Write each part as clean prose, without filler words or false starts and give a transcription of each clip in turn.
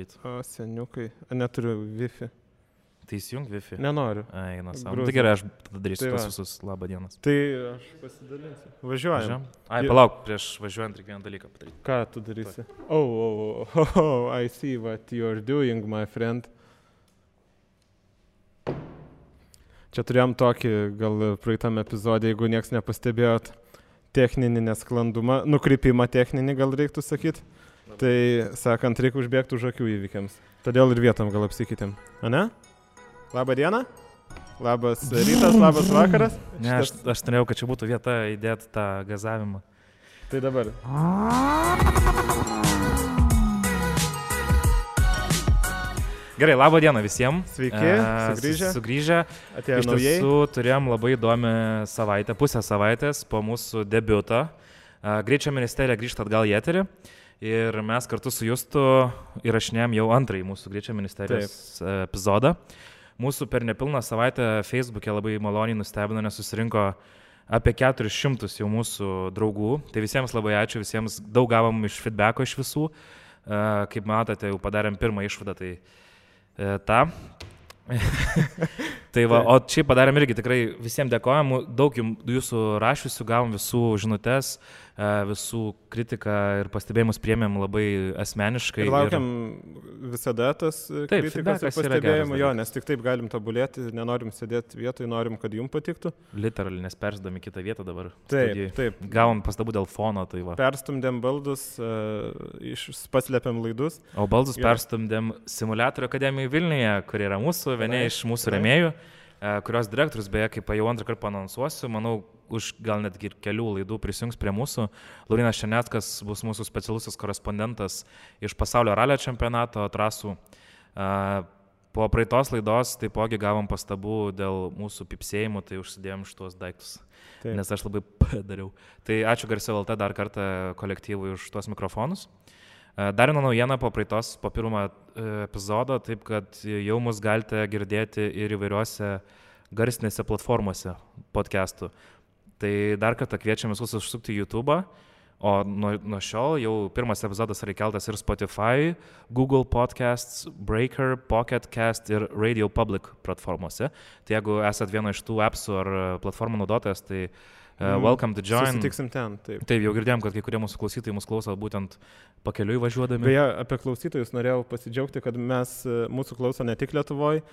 padaryti. O, seniukai. Neturiu Wi-Fi. Tai įsijung Wi-Fi? Nenoriu. Eina savo. Tai gerai, aš tada darysiu tuos visus labą dienas. Tai aš pasidalinsiu. Važiuojam. Palauk, prieš važiuojant reikia vieną dalyką padaryti. Ką tu darysi? Oh, I see what you're doing, my friend. Čia turėjom tokį, gal praeitam epizodė, jeigu nieks nepastebėjot, techninį nesklandumą, nukrypimą techninį gal reiktų sakyti. Tai, sakant, reikia užbėgti už akių įvykiams. Todėl ir vietom gal apsikeitėm. Ane? Labą dieną? Labas rytas, labas vakaras? Ne, aš norėjau, kad čia būtų vieta įdėti tą gazavimą. Tai dabar. Gerai, labą dieną visiems. Sveiki, sugrįžę. Atėjo iš naujai. tiesų turėjom labai įdomią savaitę, pusę savaitės po mūsų debiutą. Greičio ministerija grįžta atgal į eterį ir mes kartu su Justu įrašinėjom jau antrąjį mūsų Greičio ministerijos epizodą. Mūsų per nepilną savaitę Facebook'e labai maloniai nustebino, nes susirinko apie 400 jau mūsų draugų. Tai visiems labai ačiū, visiems daug gavom iš feedbacko iš visų. Kaip matote, jau padarėm pirmą išvadą, tai tą. Tai va, o čia padarėm irgi tikrai visiems dėkojam, daug jūsų rašiusių, gavom visų žinutes, visų kritiką ir pastebėjimus priėmėm labai asmeniškai. Ir laukiam visada tas kritikos ir pastebėjimų, nes tik taip galim tobulėti, nenorim sėdėti vietoj, norim, kad jums patiktų. Literally, nes persdami kitą vietą dabar. Taip. Gavom pastabų dėl fono, tai va. Perstumdėm baldus, paslėpiam laidus. O baldus perstumdėm Simuliatorių akademiją Vilniuje, kur yra vieni iš mūsų rėmėjų, kurios direktorius, beje, kaip jau antrą kartą anonsuosiu, manau, už gal netgi ir kelių laidų prisijungs prie mūsų. Laurynas Šeneckas bus mūsų specialusis korespondentas iš pasaulio ralio čempionato trasų. Po praeitos laidos taipogi gavom pastabų dėl mūsų pipsėjimų, tai užsidėjom šitos daiktus, nes aš labai padariau. Tai ačiū Garsiau LT dar kartą kolektyvui už tuos mikrofonus. Dar viena naujiena po pirmo epizodo, taip kad jau mus galite girdėti ir įvairiuose garsinėse platformose podcastų. Tai dar kartą kviečiam visus užsukti į YouTube'ą, o nuo šiol jau pirmas epizodas yra įkeltas ir Spotify, Google Podcasts, Breaker, Pocket Cast ir Radio Public platformose. Tai jeigu esat vieno iš tų appsų ar platformų naudotojas, tai welcome to join. Susitiksim ten, taip. Taip, jau girdėjom, kad kai kurie mūsų klausytojai mūsų klauso būtent pakeliui važiuodami. Beje, apie klausytojus norėjau pasidžiaugti, kad mūsų klauso ne tik Lietuvoje,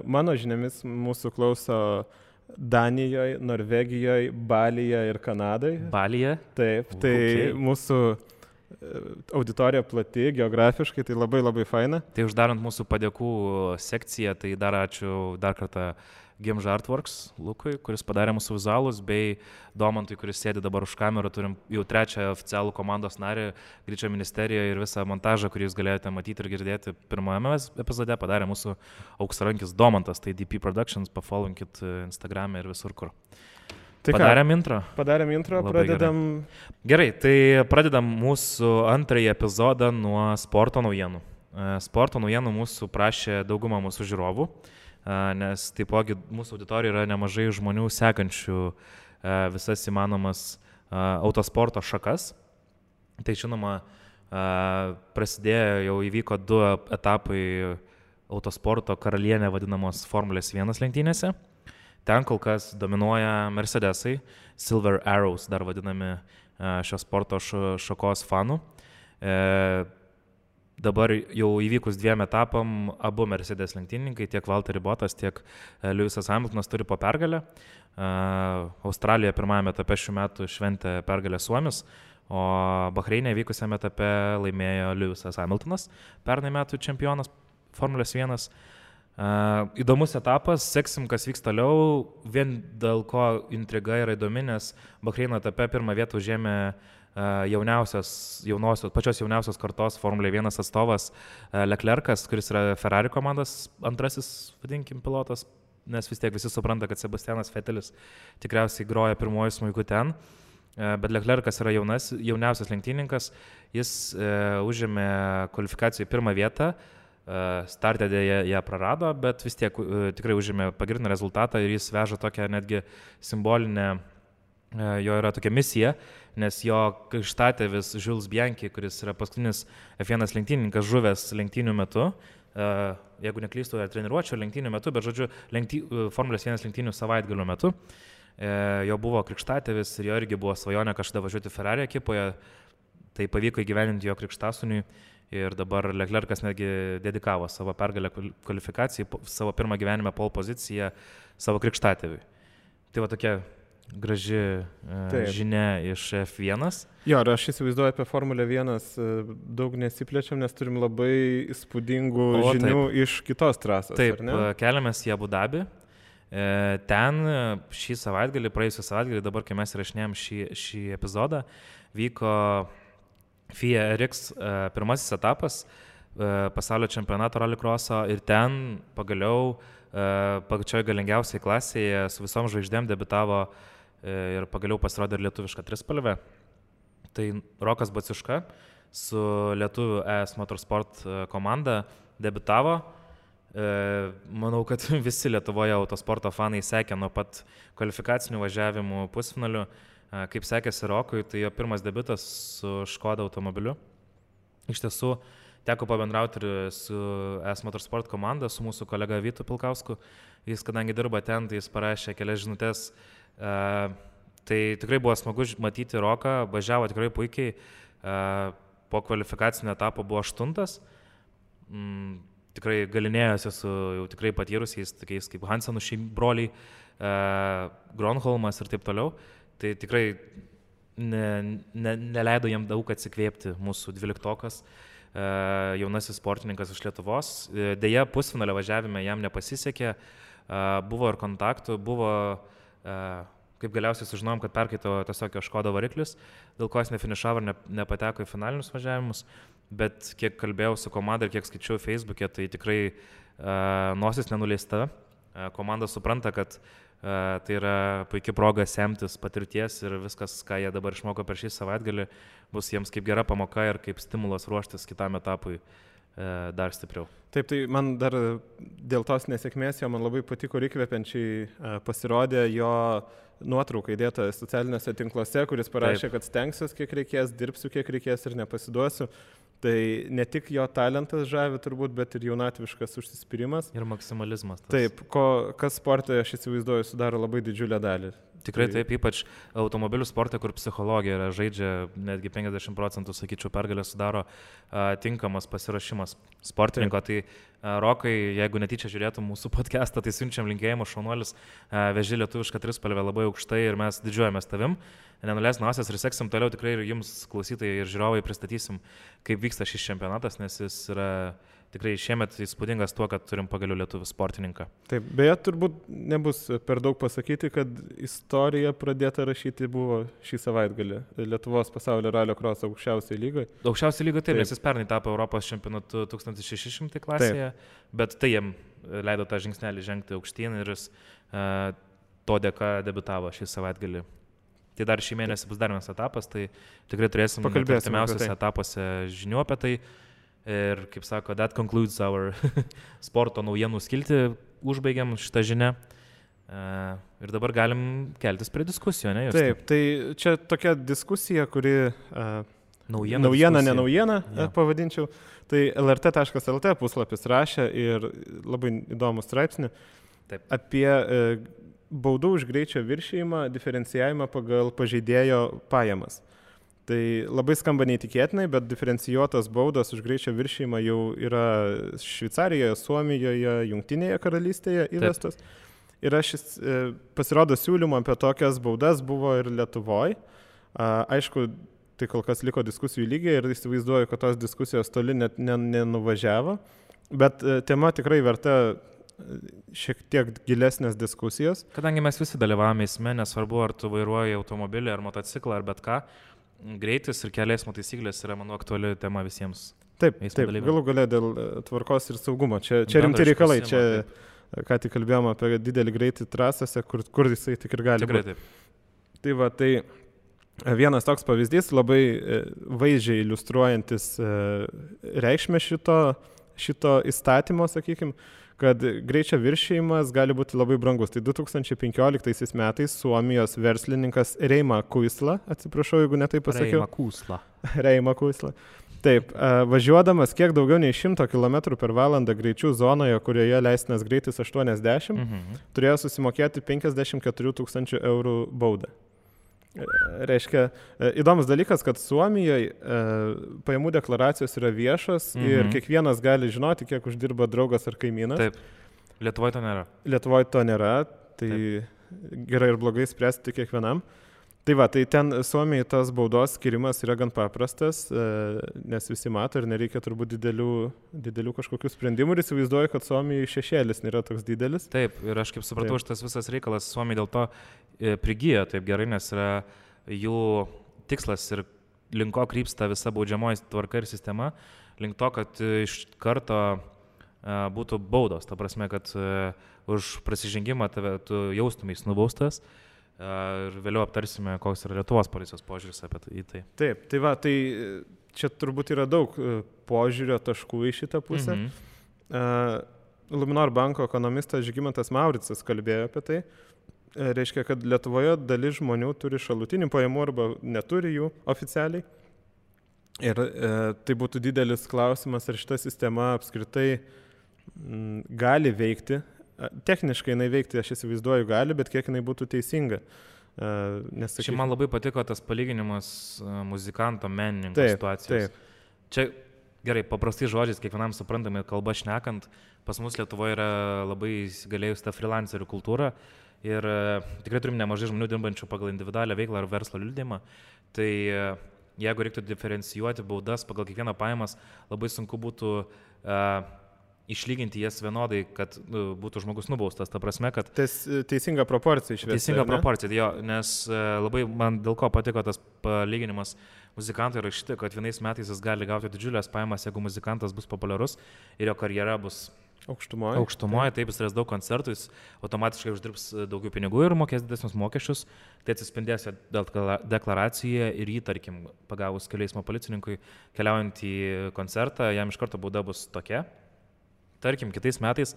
mano žiniomis mūsų klauso Danijoje, Norvegijoje, Balyje ir Kanadoje. Balyje? Taip, tai mūsų auditorija plati, geografiškai, tai labai labai faina. Tai uždarant mūsų padėkų sekciją, tai dar ačiū dar kartą Gimža Artworks Lukui, kuris padarė mūsų vizualus, bei Domantui, kuris sėdi dabar už kamerą. Turim jau trečią oficialų komandos narį Greičio ministerijoje ir visą montažą, kurį jūs galėjote matyti ir girdėti pirmajame epizode, padarė mūsų auksarankis Domantas, tai DP Productions, pafollowinkit Instagram'e ir visur kur. Tai padarėm intro. Pradedam. Gerai, tai pradedam mūsų antrąjį epizodą nuo sporto naujienų. Sporto naujienų mūsų prašė dauguma mūsų žiūrovų, nes taipogi mūsų auditorijoje yra nemažai žmonių sekančių visas įmanomas autosporto šakas. Tai žinoma, prasidėjo, jau įvyko 2 etapai autosporto karalienė vadinamos Formulės 1 lenktynėse. Ten kol kas dominuoja Mercedesai, Silver Arrows dar vadinami šios sporto šakos fanų. Dabar jau įvykus 2 etapam, abu Mercedes lenktynininkai, tiek Valtteri Bottas, tiek Lewisas Hamiltonas turi po pergalę. Australija pirmajame etape šių metų šventė pergalę Suomis, o Bahreinė vykusiame etape laimėjo Lewisas Hamiltonas, pernai metų čempionas Formulės 1. Įdomus etapas, seksim, kas vyks toliau, vien dėl ko intriga yra įdomi, nes Bahreino etape pirmą vietą užėmė pačios jauniausios kartos Formulė 1 atstovas Leclercas, kuris yra Ferrari komandos antrasis, vadinkim, pilotas, nes vis tiek visi supranta, kad Sebastianas Vettelis tikriausiai groja pirmuoju smuiku ten, bet Leclercas yra jauniausias lenktynininkas, jis užėmė kvalifikacijoje pirmą vietą, startę ją prarado, bet vis tiek tikrai užėmė pagrindinį rezultatą ir jis veža tokią netgi simbolinę jo yra tokia misija, nes jo krikštatėvis Jules Bianchi, kuris yra paskutinis F1 lenktynininkas žuvęs lenktynių metu, jeigu neklystu, treniruočio lenktynių metu, bet žodžiu, Formulės 1 lenktynių savaitgalio metu, jo buvo krikštatėvis ir jo irgi buvo svajonė kažkada važiuoti Ferrari ekipoje, tai pavyko įgyveninti jo krikštasūniui ir dabar Leclercas netgi dedikavo savo pergalę kvalifikacijai, savo pirmą gyvenime pole poziciją savo krikštatėviui. Tai va tokia graži žinia iš F1. Jo, ir aš įsivaizduoju apie Formulę 1 daug nesiplečiam, nes turim labai įspūdingų žinių iš kitos trasos. Taip, keliamės į Abu Dabį. Ten šį savaitgalį, praėjusią savaitgalį, dabar kai mes įrašinėjom šį epizodą, vyko FIA RX pirmasis etapas pasaulio čempionato rallycrosso ir ten pagaliau pačioje galingiausiai klasėje su visom žvaigždėm debitavo ir pagaliau pasirodė ir lietuviška trispalvė. Tai Rokas Baciuška su lietuvių ES Motorsport komanda debitavo. Manau, kad visi Lietuvoje autosporto fanai sekė nuo pat kvalifikacinių važiavimų pusfinalių. Kaip sekėsi Rokui, tai jo pirmas debiutas su Škoda automobiliu. Iš tiesų, teko pabendrauti ir su ES Motorsport komanda, su mūsų kolega Vytu Pilkausku. Jis, kadangi dirba ten, tai jis parašė kelias žinutės. Tai tikrai buvo smagu matyti Roką, važiavo tikrai puikiai. Po kvalifikacinio etapo buvo 8. Tikrai galinėjosi su jau tikrai patyrusiais, tokiais kaip Hansenų broliai, Gronholmas ir taip toliau. Tai tikrai neleido jam daug atsikvėpti mūsų 12-okas, jaunasis sportininkas iš Lietuvos. Deja, pusfinalio važiavime jam nepasisekė, buvo ir kontaktų, buvo, kaip galiausiai sužinojom, kad perkaito tiesiog jo Škoda variklis, dėl ko jis nefinišavo ir nepateko į finalinius važiavimus, bet kiek kalbėjau su komanda ir kiek skaičiau Facebook'e, tai tikrai nosis nenuleista. Komanda supranta, kad tai yra puikia proga semtis patirties ir viskas, ką jie dabar išmoko per šį savaitgalį, bus jiems kaip gera pamoka ir kaip stimulas ruoštis kitam etapui dar stipriau. Taip, tai man dar dėl tos nesėkmės jo man labai patiko ir įkvepiančiai pasirodė jo nuotrauka įdėta socialiniuose tinkluose, kuris parašė, kad stengsiuos kiek reikės, dirbsiu kiek reikės ir nepasiduosiu. Tai ne tik jo talentas žavi turbūt, bet ir jaunatviškas užsispyrimas. Ir maksimalizmas. Taip, kas sporte, aš įsivaizduoju, sudaro labai didžiulę dalį. Tikrai taip, ypač automobilių sporte, kur psichologija žaidžia netgi 50%, sakyčiau, pergalę sudaro tinkamas pasirašymas sportininko. Tai Rokai, jeigu netyčia žiūrėtum mūsų podcastą, tai siunčiam linkėjimą, šaunuolis, veži lietuvišką trispalvę labai aukštai ir mes didžiuojamės tavim. Nenuleis nosies ir seksim toliau tikrai ir jums klausytojai ir žiūrovai pristatysim, kaip vyksta šis čempionatas, nes jis yra tikrai šiemet įspūdingas tuo, kad turim pagaliau lietuvių sportininką. Taip, beje, turbūt nebus per daug pasakyti, kad istorija pradėta rašyti buvo šį savaitgalį Lietuvos pasaulio rallycross aukščiausiai lygoje. Aukščiausiai lygoje taip, nes jis pernai tapo Europos čempionatu 1600 klasėje, bet tai jam leido tą žingsnelį žengti aukštyn ir jis to dėka debiutavo šį savaitgalį. Tai dar šį mėnesį bus dar vienas etapas, tai tikrai turėsim artimiausiuose etapuose žinių apie tai. Ir, kaip sako, that concludes our sporto naujienų skiltį, užbaigiam šitą žinią. Ir dabar galim keltis prie diskusijų, ne? Justai? Taip, tai čia tokia diskusija, kuri naujiena, ne naujiena, pavadinčiau. Tai lrt.lt puslapis rašė ir labai įdomų straipsnį apie baudų už greičio viršijimą, diferencijavimą pagal pažeidėjo pajamas. Tai labai skamba neįtikėtinai, bet diferencijuotas baudos už greičio viršijimą jau yra Šveicarijoje, Suomijoje, Jungtinėje karalystėje įvestas. Ir pasirodo siūlymų apie tokias baudas buvo ir Lietuvoje. Aišku, tai kol kas liko diskusijų lygiai ir įsivaizduoju, kad tos diskusijos toli net nenuvažiavo. Bet tema tikrai verta šiek tiek gilesnės diskusijos. Kadangi mes visi dalyvavome eisme, nesvarbu, ar tu vairuoji automobilį, ar motociklą, ar bet ką, greitis ir kelių eismo taisyklės yra, manau, aktuali tema visiems. Taip, galų gale dėl tvarkos ir saugumo. Čia rimti reikalai. Čia, ką tik kalbėjome apie didelį greitį trasose, kur jisai tik ir gali būti. Tai va, tai vienas toks pavyzdys, labai vaizdžiai iliustruojantis reikšmę šito įstatymo, sakykime, kad greičio viršijimas gali būti labai brangus. Tai 2015 metais Suomijos verslininkas Reima Kuisla, atsiprašau, jeigu netai pasakiau. Reima Kuisla. Taip, važiuodamas kiek daugiau nei 100 km/h greičių zonoje, kurioje leistinas greitis 80, turėjo susimokėti 54 000 eurų baudą. Reiškia, įdomus dalykas, kad Suomijoje pajamų deklaracijos yra viešos ir kiekvienas gali žinoti, kiek uždirba draugas ar kaimynas. Taip, Lietuvoje to nėra. Lietuvoje to nėra, tai gerai ir blogai spręsti kiekvienam. Tai va, tai ten Suomijai tas baudos skirimas yra gan paprastas, nes visi mato ir nereikia turbūt didelių kažkokių sprendimų ir įsivaizduoju, kad Suomijai šešėlis nėra toks didelis. Taip, ir aš kaip supratau, šitas visas reikalas Suomijai dėl to prigijo taip gerai, nes yra jų tikslas ir link ko krypsta visa baudžiamoji tvarka ir sistema, link to, kad iš karto būtų baudos, ta prasme, kad už prasižengimą tu jaustumės nubaustas. Ir vėliau aptarsime, koks yra Lietuvos policijos požiūris apie tai. Taip, tai va, tai čia turbūt yra daug požiūrio taškų į šitą pusę. Luminor banko ekonomistas Žygimantas Mauricas kalbėjo apie tai. Reiškia, kad Lietuvoje dalis žmonių turi šalutinių pajamų arba neturi jų oficialiai. Ir tai būtų didelis klausimas, ar šita sistema apskritai gali veikti. Techniškai jinai veikti, aš įsivaizduoju, gali, bet kiek jinai būtų teisinga. Čia man labai patiko tas palyginimas muzikanto, menininko situacijos. Taip. Čia gerai, paprastai žodžiais, kiekvienam suprantami kalba šnekant, pas mus Lietuvoje yra labai įsigalėjusi ta freelancerių kultūra ir tikrai turim nemažai žmonių dirbančių pagal individualią veiklą ar verslo liudijimą. Tai jeigu reiktų diferencijuoti baudas pagal kiekvieną pajamas, labai sunku būtų išlyginti jas vienodai, kad būtų žmogus nubaustas. Ta prasme, kad teisinga proporcija išvesti. Teisinga proporcija, jo, nes labai man dėl ko patiko tas palyginimas muzikantui rašyti, kad vienais metais jis gali gauti didžiulės pajamas, jeigu muzikantas bus populiarus ir jo karjera bus aukštumoje, taip jis turės daug koncertų, jis automatiškai uždirbs daugiau pinigų ir mokės didesnius mokesčius, tai atsispindės deklaracijoje ir jį, tarkim, pagavus kelių eismo policininkui keliaujant į koncertą, jam iš karto bauda bus tokia. Tarkim, kitais metais,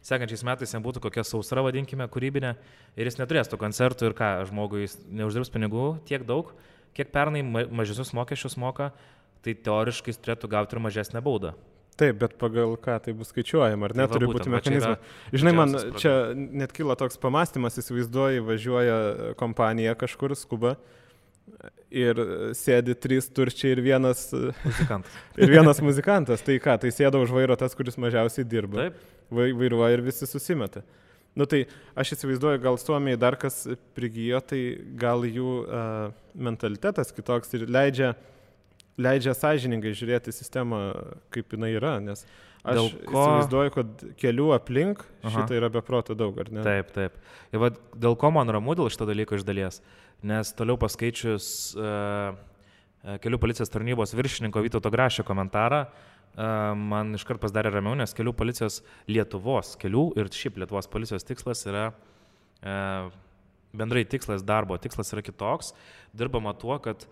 sekančiais metais jam būtų kokia sausra, vadinkime, kūrybinė ir jis neturės tų koncertų ir ką, žmogui jis neuždirbs pinigų tiek daug, kiek pernai mažesnius mokesčius moka, tai teoriškai jis turėtų gauti ir mažesnę baudą. Taip, bet pagal ką tai bus skaičiuojama, ar ne, turi būti mechanizmai. Žinai, man čia net kilo toks pamastymas, įsivaizduoji, važiuoja kompanija kažkur, skuba. Ir sėdi 3 turčiai ir vienas muzikantas. Tai ką, tai sėda už vairo tas, kuris mažiausiai dirba. Taip. Vairuoja ir visi susimeta. Nu tai aš įsivaizduoju, gal Suomijai dar kas prigijo, tai gal jų mentalitetas kitoks ir leidžia sąžiningai žiūrėti sistemą, kaip jinai yra, nes aš įsivaizduoju, kad kelių aplink šitą yra beproto daug, ar ne? Taip, taip. Ir va, dėl ko man ramu dėl šito dalyko iš dalies, nes toliau paskaičius kelių policijos tarnybos viršininko Vytauto Grašio komentarą, man iškart pasidarė ramiau, nes kelių policijos Lietuvos kelių ir šiaip Lietuvos policijos tikslas yra, bendrai tikslas, darbo tikslas yra kitoks, dirbama tuo, kad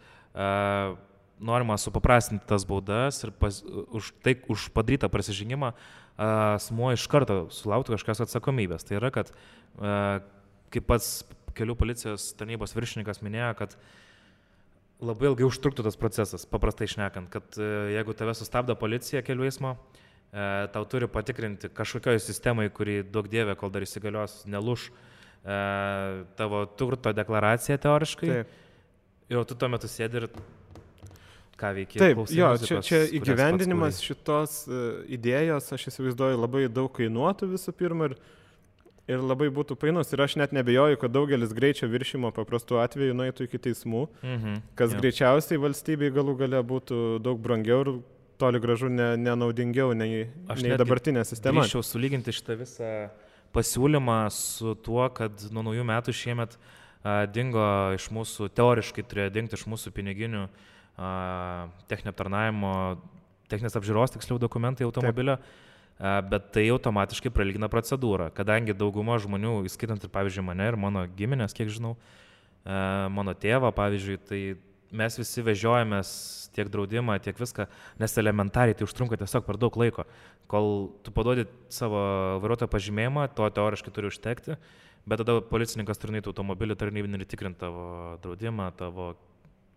norima supaprastinti tas baudas ir už padarytą prasižengimą asmuo iš karto sulauktų kažkokios atsakomybės. Tai yra, kad kaip pats kelių policijos tarnybos viršininkas minėjo, kad labai ilgai užtruktų tas procesas, paprastai šnekant, kad jeigu tave sustabdo policija kelių eismo, tau turi patikrinti kažkokioj sistemai, kuri daug dievė, kol dar įsigalios, nelūš tavo turto deklaraciją teoriškai. Taip. Ir tu tuo metu sėdi ir ką veikia. Taip, jo, čia įgyvendinimas šitos idėjos, aš įsivaizduoju, labai daug kainuotų visų pirma ir labai būtų painus. Ir aš net nebejoju, kad daugelis greičio viršimo paprastų atveju nueitų iki teismų, kas greičiausiai valstybei galų gale būtų daug brangiau ir toli gražu nenaudingiau nei dabartinė sistema. Aš grįžčiau sulyginti šitą visą pasiūlymą su tuo, kad nuo naujų metų šiemet dingo iš mūsų, teoriškai turėjo dingti iš mūsų piniginių techninio aptarnavimo, techninės apžiūros tiksliau dokumentai automobilio, bet tai automatiškai pralygina procedūrą, kadangi dauguma žmonių, įskaitant ir pavyzdžiui mane ir mano giminės, kiek žinau, mano tėvą pavyzdžiui, tai mes visi vežiojamės tiek draudimą, tiek viską, nes elementariai tai užtrunka tiesiog per daug laiko. Kol tu paduodi savo vairuotojo pažymėjimą, to teoriškai turi užtekti, bet tada policininkas turi nueiti automobilį tarnybinį ir tikrinti tavo draudimą, tavo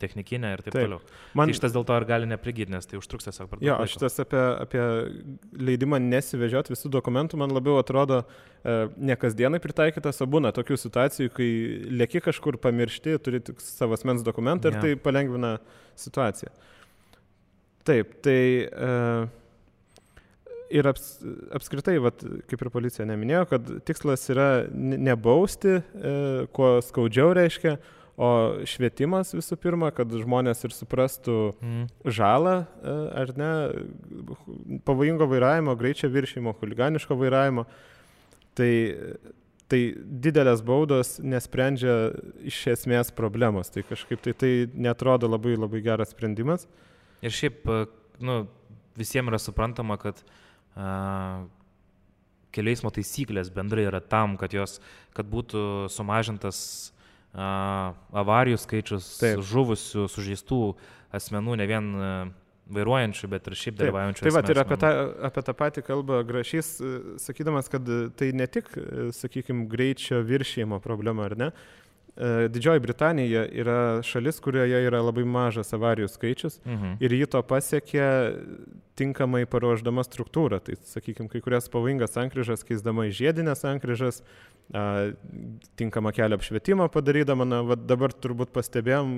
technikinę ir taip toliau. Tai šitas dėl to ir gali neprigyti, nes tai užtruks tiesiog per daug laiko. Šitas apie leidimą nesivežioti visų dokumentų, man labiau atrodo ne kasdienai pritaikytas, o būna tokių situacijų, kai lieki kažkur pamiršti, turi tik savo asmens dokumentą ir tai palengvina situaciją. Taip, tai ir apskritai, kaip ir policija neminėjo, kad tikslas yra nebausti, kuo skaudžiau reiškia, o švietimas visų pirma, kad žmonės ir suprastų žalą, ar ne, pavojingo vairavimo, greičio viršijimo, chuliganiško vairavimo. Tai didelės baudos nesprendžia iš esmės problemos. Tai kažkaip tai netrodo labai, labai geras sprendimas. Ir šiaip, visiems yra suprantama, kad kelių eismo taisyklės bendrai yra tam, kad būtų sumažintas avarijų skaičius, žuvusių, sužeistų asmenų, ne vien vairuojančių, bet ir šiaip dalyvaujančių asmenų. Tai ir apie tą patį kalbą Grašys, sakydamas, kad tai ne tik, sakykime, greičio viršijimo problema, ar ne? Didžioji Britanija yra šalis, kurioje yra labai mažas avarijų skaičius ir jį to pasiekė tinkamai paruošdama struktūrą. Tai, sakykime, kai kurias pavojingas sankryžas keisdama į žiedinės sankryžas, tinkamą kelio apšvietimą padarydama. Dabar turbūt pastebėjom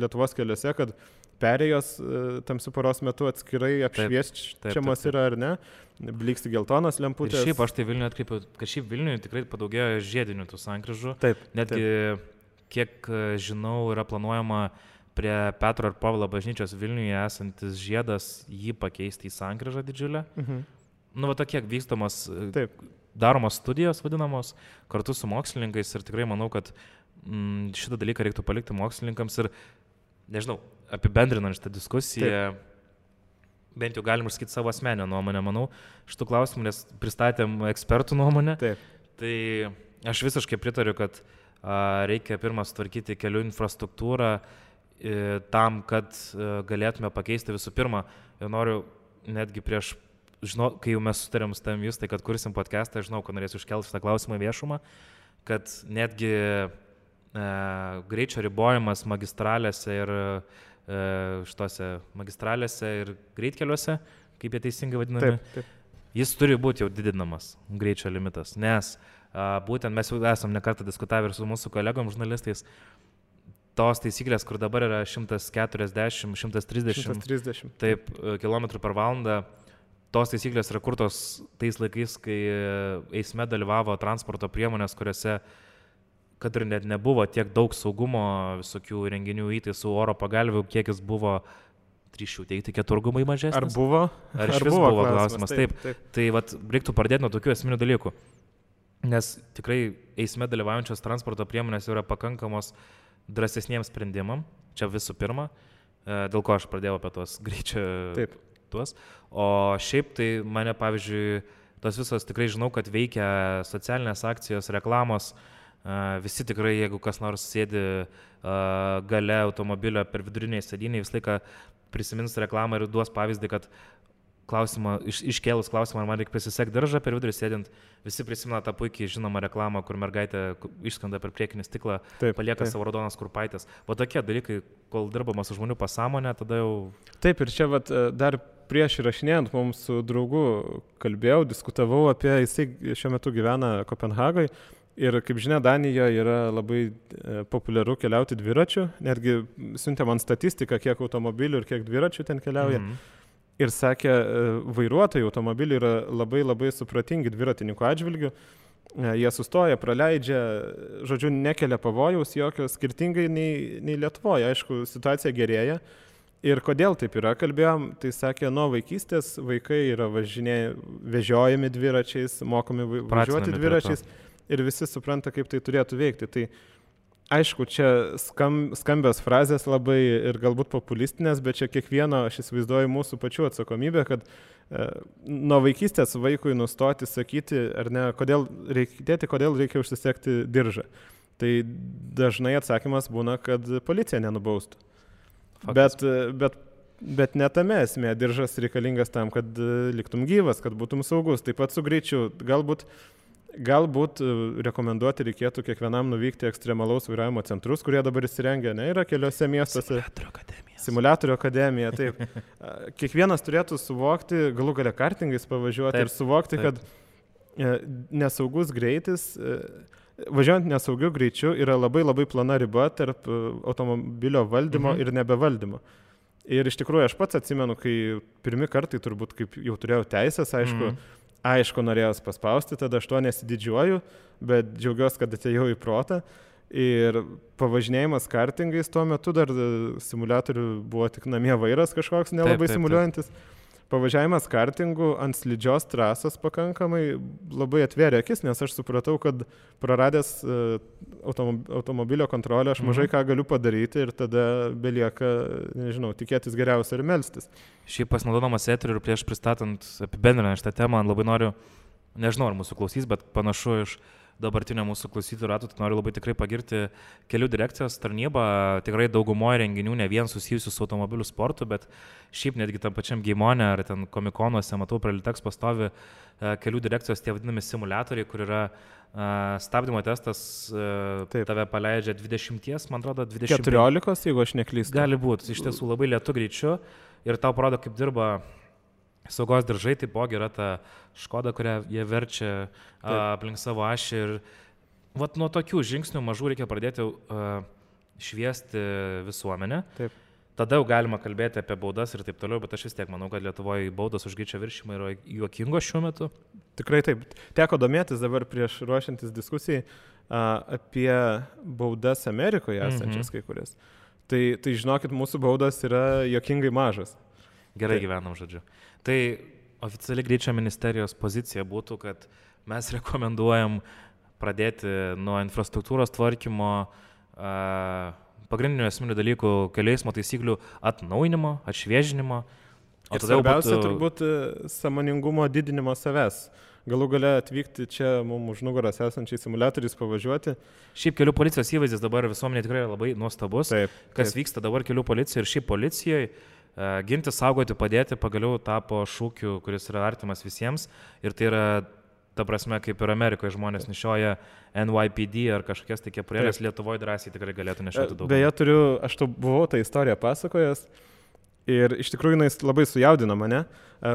Lietuvos keliuose, kad perėjos tamsių paros metu atskirai apšviesčiamos yra, ar ne? Bliksti geltonas lemputės. Ir šiaip aš tai Vilniuje atkreipiau, kad šiaip Vilniuje tikrai padaugėjo žiedinių tų sankryžų. Netgi, kiek žinau, yra planuojama prie Petro ir Povilo bažnyčios Vilniuje esantis žiedas jį pakeisti į sankryžą didžiulę. Tokie vykstamos, daromos studijos vadinamos kartu su mokslininkais ir tikrai manau, kad šitą dalyką reiktų palikti mokslininkams ir, nežinau, apibendrinant šitą diskusiją, bent jau galim išsakyti savo asmeninę nuomonę, manau, šitų klausimų, nes pristatėm ekspertų nuomonę. Tai aš visiškai pritariu, kad reikia pirmą sutvarkyti kelių infrastruktūrą tam, kad galėtume pakeisti visų pirma. Ir noriu netgi kai jau mes sutarėm su tavim Justai, kad kursim podcastą, žinau, kad norėsiu iškelti šitą klausimą viešumą, kad netgi greičio ribojimas magistralėse ir magistralėse ir greitkeliuose, kaip jie teisingai vadinami, jis turi būti jau didinamas, greičio limitas, nes būtent mes jau esam nekartą diskutavę ir su mūsų kolegom žurnalistais, tos taisyklės, kur dabar yra 140, 130 km per valandą, tos taisyklės yra kurtos tais laikais, kai eisme dalyvavo transporto priemonės, kuriuose, kad ir net nebuvo tiek daug saugumo visokių renginių įtaisų, oro pagalvių, kiekis buvo, drįsčiau teikti, keturgumai mažesnis. Ar buvo? Ar iš vis buvo klausimas? Taip. Tai reiktų pradėti nuo tokių esminių dalykų. Nes tikrai eisme dalyvaujančios transporto priemonės yra pakankamos drąsesniems sprendimam, čia visų pirma, dėl ko aš pradėjau apie tos greičio tuos. O šiaip tai mane, pavyzdžiui, tos visos tikrai žinau, kad veikia socialinės akcijos, reklamos, visi tikrai, jeigu kas nors sėdi gale automobilio per viduriniai sėdynį, visą laiką prisimins reklamą ir duos pavyzdį, kad iškėlus klausimą, ar man reikia pasisekti diržą per vidurį sėdint, visi prisimena tą puikiai žinomą reklamą, kur mergaitė išskrenda per priekinį stiklą, palieka savo raudonas kurpaitės. O tokie dalykai, kol dirbama su žmonių pasąmonė, tada jau... Taip, ir čia dar prieš įrašinėjant mums su draugu kalbėjau, diskutavau apie, jisai šiuo metu gyvena Kopenhagoje ir, kaip žinia, Danijoje yra labai populiaru keliauti dviračiu, netgi siuntė man statistiką, kiek automobilių ir kiek dviračių ten keliauja. Ir sakė, vairuotojai automobiliai yra labai labai supratingi dviratininkų atžvilgių, jie sustoja, praleidžia, žodžiu, nekelia pavojaus jokio, skirtingai nei Lietuvoje. Aišku, situacija gerėja. Ir kodėl taip yra, kalbėjom, tai sakė, nuo vaikystės vaikai yra vežiojami dviračiais, mokomi važiuoti dviračiais ir visi supranta, kaip tai turėtų veikti. Tai aišku, čia skambios frazės labai ir galbūt populistinės, bet čia kiekvieno, aš įsivaizduoju, mūsų pačių atsakomybė, kad nuo vaikystės vaikui nustoti sakyti, ar ne, kodėl reikia užsisekti diržą. Tai dažnai atsakymas būna, kad policija nenubaustų. Bet ne tame esmė, diržas reikalingas tam, kad liktum gyvas, kad būtum saugus. Taip pat su greičiu. Galbūt rekomenduoti reikėtų kiekvienam nuvykti ekstremalaus vairavimo centrus, kurie dabar įsirengia, ne, yra keliose miestuose. Simuliatorių akademija, taip. Kiekvienas turėtų suvokti, galų gale kartingais pavažiuoti ir suvokti, kad nesaugus greitis, važiuojant nesaugiu greičiu, yra labai labai plona riba tarp automobilio valdymo ir nebevaldymo. Ir iš tikrųjų aš pats atsimenu, kai pirmi kartai turbūt, kaip jau turėjau teisės, aišku, norėjau paspausti, tada aš to nesididžiuoju, bet džiaugiuosi, kad atėjau į protą. Ir pavažinėjimas kartingais tuo metu dar simuliatorių buvo tik namie vairas kažkoks nelabai simuliuojantis. Pavažiavimas kartingų ant slidžios trasos pakankamai labai atvėrė akis, nes aš supratau, kad praradęs automobilio kontrolę aš mažai ką galiu padaryti ir tada belieka, nežinau, tikėtis geriausia ir melstis. Šiaip pasinaudodamas eteriu ir prieš pristatant apibendrinant šitą temą, labai noriu, nežinau ar mūsų klausys, bet panašu iš dabartinio mūsų klausytojų ratų, tai noriu labai tikrai pagirti kelių direkcijos tarnybą, tikrai daugumoje renginių ne vien susijusių su automobilių sportu, bet šiaip netgi tam pačiam Geimone ar ten komikonuose, matau, prie Liteks pastovi kelių direkcijos tie vadinami simuliatoriai, kur yra stabdymo testas, tave paleidžia 20, man atrodo, 20. 14, jeigu aš neklystu. Gali būti, iš tiesų labai lėtu greičiu ir tau parodo, kaip dirba saugos diržai, taipogi yra ta Škoda, kurią jie verčia aplink savo ašį ir vat nuo tokių žingsnių mažų reikia pradėti šviesti visuomenę. Taip. Tada jau galima kalbėti apie baudas ir taip toliau, bet aš vis tiek manau, kad Lietuvoje baudos už greičio viršijimą yra juokingos šiuo metu. Tikrai taip. Teko domėtis dabar prieš ruošiantis diskusijai apie baudas Amerikoje esančias kai kurias. Tai žinokit, mūsų baudos yra juokingai mažas. Gerai gyvenam, žodžiu. Tai oficiali greičio ministerijos pozicija būtų, kad mes rekomenduojam pradėti nuo infrastruktūros tvarkymo, pagrindinių esminių dalykų, kelių eismo taisyklių atnaujinimo, atšviežinimo. Ir svarbiausia turbūt sąmoningumo didinimo savęs. Galų gale atvykti čia mums už nugaras esančiais simuliatoriais pavažiuoti. Šiaip kelių policijos įvaizdis dabar visuomenė tikrai labai nuostabus. Kas vyksta dabar kelių policijoje ir šiaip policijoje. Ginti, saugoti, padėti pagaliau tapo šūkiu, kuris yra artimas visiems ir tai yra, ta prasme, kaip ir Amerikoje žmonės nešioja NYPD ar kažkokias tai kepurėlės, Lietuvoje drąsiai tikrai galėtų nešioti daug. Beje, aš buvau tą istoriją pasakojęs ir iš tikrųjų jis labai sujaudino mane.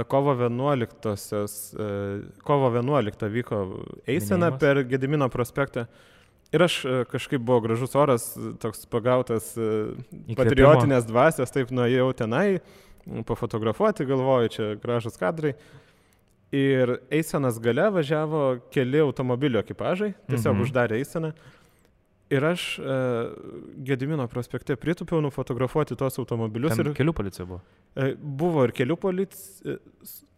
Kovo 11 vyko eisena per Gedimino prospektą. Ir aš kažkaip buvo gražus oras, toks pagautas patriotinės dvasios, taip nuėjau tenai, pafotografuoti, galvoju, čia gražus kadrai. Ir eisenos gale važiavo keli automobilio ekipažai, tiesiog uždarė eiseną. Ir aš Gedimino prospekte pritūpiau nufotografuoti tos automobilius. Ten kelių policija buvo? Buvo ir kelių policija.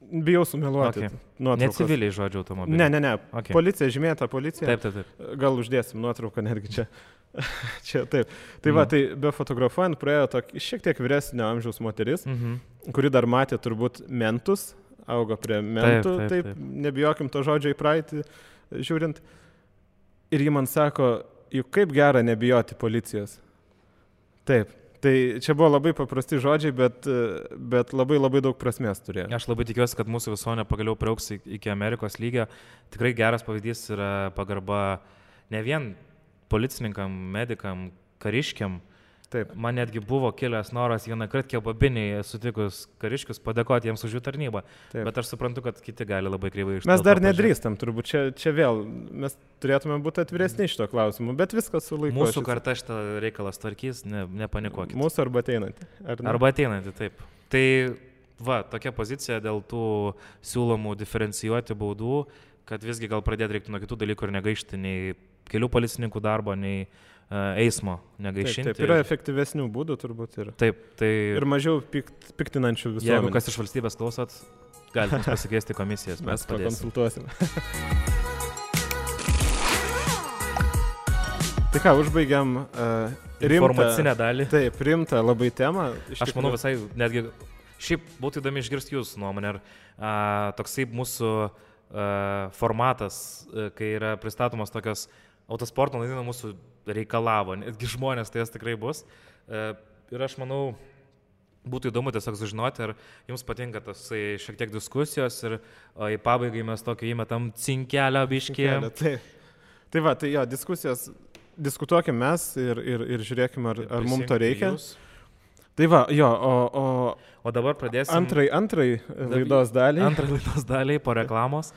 Bijau sumeluoti. Ne civiliai žodžiu automobiliai. Ne. Okay. Policija, žymėta policija. Taip. Gal uždėsim nuotrauką netgi čia. Čia taip. Tai va, tai be fotografuojant praėjo šiek tiek vyresnio amžiaus moteris, kuri dar matė turbūt mentus, augo prie mentų, taip. Nebijokim to žodžio į praeitį žiūrint. Ir ji man sako, juk kaip gera nebijoti policijos. Taip. Tai čia buvo labai paprasti žodžiai, bet labai labai daug prasmės turėjo. Aš labai tikiuosi, kad mūsų visuomenė pagaliau priaugs iki Amerikos lygio. Tikrai geras pavyzdys yra pagarba ne vien policininkam, medikam, kariškiam. Taip. Man netgi buvo kilęs noras vieną kartą kebabinėje sutikus kariškius padėkoti jiems už jų tarnybą. Taip. Bet aš suprantu, kad kiti gali labai kreivai ištarti. Mes dar nedrįstam, turbūt čia vėl. Mes turėtume būti atviresni šito klausimu, bet viskas su laiku. Mūsų karta šitą reikalą tvarkys, nepanikuokit. Mūsų arba ateinantį. Arba ateinantį, taip. Tai va, tokia pozicija dėl tų siūlomų diferencijuoti baudų, kad visgi gal pradėti reiktų nuo kitų dalykų ir negaišti nei kelių policininkų darbo, nei eismo negaišinti. Taip, yra efektyvesnių būdų turbūt ir. Taip, tai. Ir mažiau piktinančių visuomenės. Jeigu kas iš valstybės klausot, galite pasikviesti komisijas, mes pakonsultuosim. Tai ką, užbaigiam informacinę dalį. Taip, rimtą labai temą. Aš manau visai, netgi, šiaip būtų įdomi išgirsti jūsų nuomonę. Toksai mūsų formatas, kai yra pristatomos tokios autosporto naujienos mūsų reikalavo, netgi žmonės tai jas tikrai bus. Ir aš manau, būtų įdomu tiesiog sužinoti, ar jums patinka tos šiek tiek diskusijos ir į pabaigai mes tokio įmetam cinkelio biškį. Tai va, tai jo, diskusijos, diskutuokim mes ir žiūrėkim, ar mums to reikia. Tai va, jo, o dabar pradėsim. Antrai laidos daliai. Antrai laidos daliai po reklamos.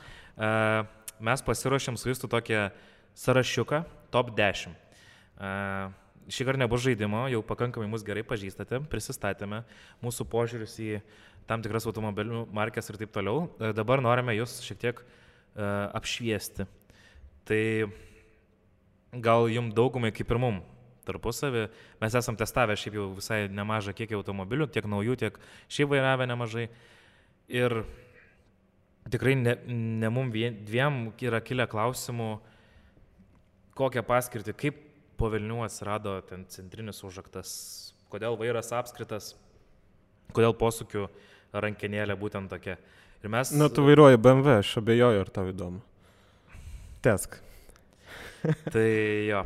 Mes pasiruošėm su jūsų tokią sąrašiuką, top 10. Šį kartą nebus žaidimo, jau pakankamai mus gerai pažįstate, prisistatėme mūsų požiūrius į tam tikras automobilių markės ir taip toliau. Dabar norime jūs šiek tiek apšviesti. Tai gal jums daugumai kaip ir mum tarpusavį. Mes esam testavę šiaip jau visai nemažą kiekį automobilių, tiek naujų, tiek šiaip vairavę nemažai. Ir tikrai ne mum dviem yra kilę klausimų, kokią paskirtį, kaip po velnių atsirado ten centrinis užraktas, kodėl vairas apskritas, kodėl posūkių rankenėlė būtent tokia. Ir mes... Na, tu vairuoji BMW, aš abejoju, ar tau įdomu. Tesk. Tai jo,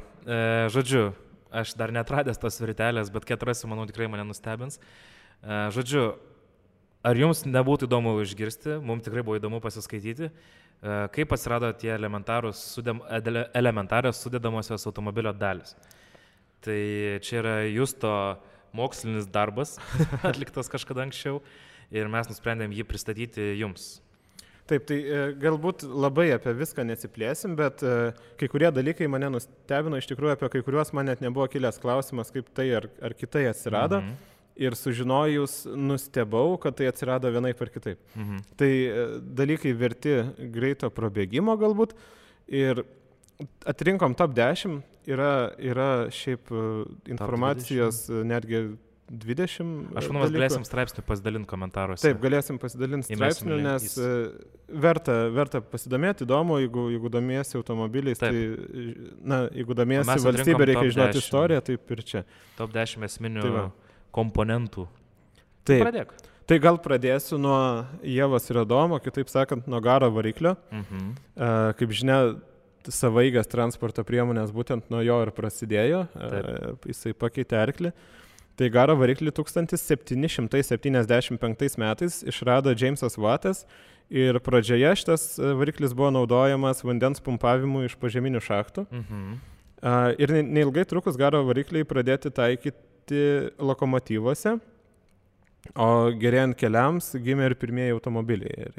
žodžiu, aš dar netradęs tos virtelės, bet kai atrasiu, manau, tikrai mane nustebins. Žodžiu, ar jums nebūtų įdomu išgirsti, mums tikrai buvo įdomu pasiskaityti, kaip atsirado tie elementarios sudedamosios automobilio dalis. Tai čia yra Justo mokslinis darbas, atliktas kažkada anksčiau, ir mes nusprendėm jį pristatyti jums. Taip, tai galbūt labai apie viską nesiplėsim, bet kai kurie dalykai mane nustebino, iš tikrųjų apie kai kuriuos man net nebuvo kilęs klausimas, kaip tai ar kitai atsirado. Ir sužinojus nustebau, kad tai atsirado vienaip ar kitaip. Tai dalykai verti greito prabėgimo galbūt. Ir atrinkom top 10, yra šiaip informacijos netgi 20. Aš manau, mes galėsim straipsnių pasidalinti komentaruose. Taip, galėsim pasidalinti straipsnių, nes verta pasidomėti, įdomu, jeigu domiesi automobiliais, taip. Tai, jeigu domiesi valstybė, reikia žinoti istoriją, taip ir čia. Top 10 esminių komponentų. Taip. Pradėk. Tai gal pradėsiu nuo Ievos ir Adomo, kitaip sakant, nuo garo variklio. Kaip žinia, savaeigės transporto priemonės būtent nuo jo ir prasidėjo. Jisai pakeitė arklį. Tai garo variklį 1775 metais išrado Jamesas Wattas ir pradžioje šitas variklis buvo naudojamas vandens pumpavimui iš požeminių šachtų. Ir neilgai trukus garo varikliai pradėti taikyti lokomotyvuose, o gerėjant keliams gimė ir pirmieji automobiliai.